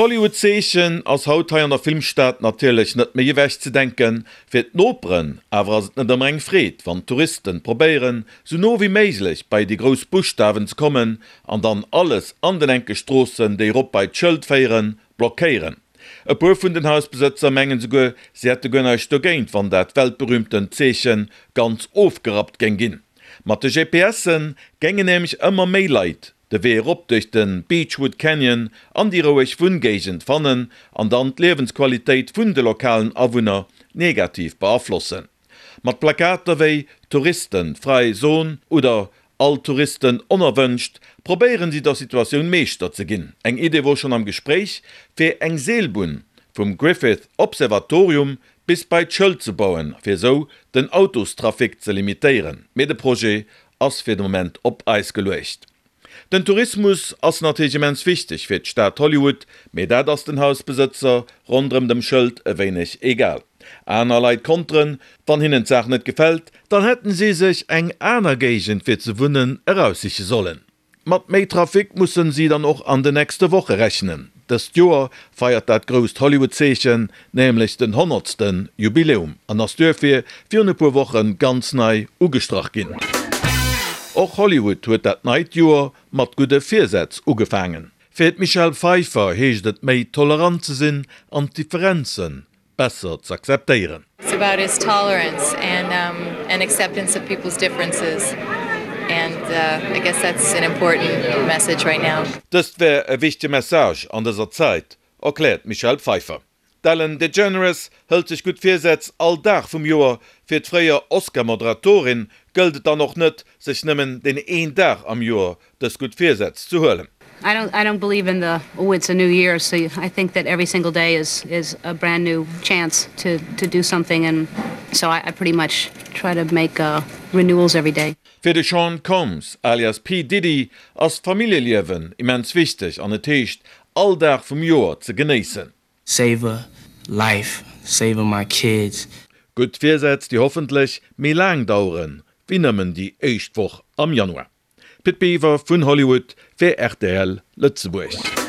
D'Hollywood-Zeechen ass haut hei an der Filmstad natierlech net méi ewech ze denken. Fir d'Noperen awer ass et net ëmmer eng Freed, wann d'Touristen probéieren, sou no wéi méiglech bei déi grouss Buschtawen ze kommen an dann alles an den enke Stroossen, déi erop bei d'Schëld féieren, blockéieren. E puer vun den Hausbesëtzer mengen souguer, si hätte guer näischt dogéint, wann dat weltberühmtent Zeechen ganz ofgerappt géing ginn. Mat de GPSen géingen nämlech ëmmer méi Leit de Wee erop duerch de Beachwood Canyon an déi roueg Wunngéigend fannen an dann d'Liewensqualitéit vun de lokalen Awunner negativ beaflossen. Mat Plakater wéi Touristen frei Zone oder All Touristen onerwënscht probéieren si der Situatioun Meeschter ze ginn. Eng Idee wor schonn am Gespréich, fir eng Seelbunn vum Griffith Observatorium bis bei d'Schëld ze bauen, fir esou den Autostrafic ze limitéieren. Mee de Projet ass fir de Moment op Eis geluecht. Den Tourismus ass natierlech immens wichteg fir d'Stad Hollywood, mee dat ass den Hausbesëtzer ronderëm dem Schëld e wéineg egal. Aner Leit konteren, wann hinnen d'Saach net gefält, dann hätten si sech eng aner Géigend fir ze wunnen eraussiche sollen. Mat méi Trafic mussen si dann och an de nächste Woche rechnen. Dëst Joer feiert dat grousst Hollywood-Zeechen nämlech den honnertste Jubiläum an ass duerfir virun e puer Woche ganz nei ugestrach ginn. Och Hollywood huet dat neit Joer mat gudde Virsätz ugefaangen. Fir d'Michelle Pfeiffer heescht et méi tolerant ze sinn an d'Differenzen besser z'akzeptéieren. It's about is tolerance and and acceptance of people's differences and I guess that's an important message right now. Dëst wär e wichtege Message an dëser Zäit, erkläert d'Michelle Pfeiffer. D'Ellen DeGeneres hëlt sech gutt Virsätz all Dag vum Joer. Fir d'fréier Oscar-Moderatorin gëllt et dann och net, sech nëmmen deen een Dag am Joer dës gutt Virsätz ze huelen. I don't I don't believe in the oh it's a new year so I think that every single day is is a brand new chance to to do something and so I I pretty much try to make renewals every day. Fir de Sean Combs alias P. Diddy ass d'Familljeliewen immens wichteg an et heescht all Dag vum Joer ze genéissen. Savor life, savor my kids. Gutt Virsätz déi hoffentlech méi laang daueren wéi nëmmen déi éischt Woch am Januar. Pit Biwer vun Hollywood fir rtl Lëtzebuerg.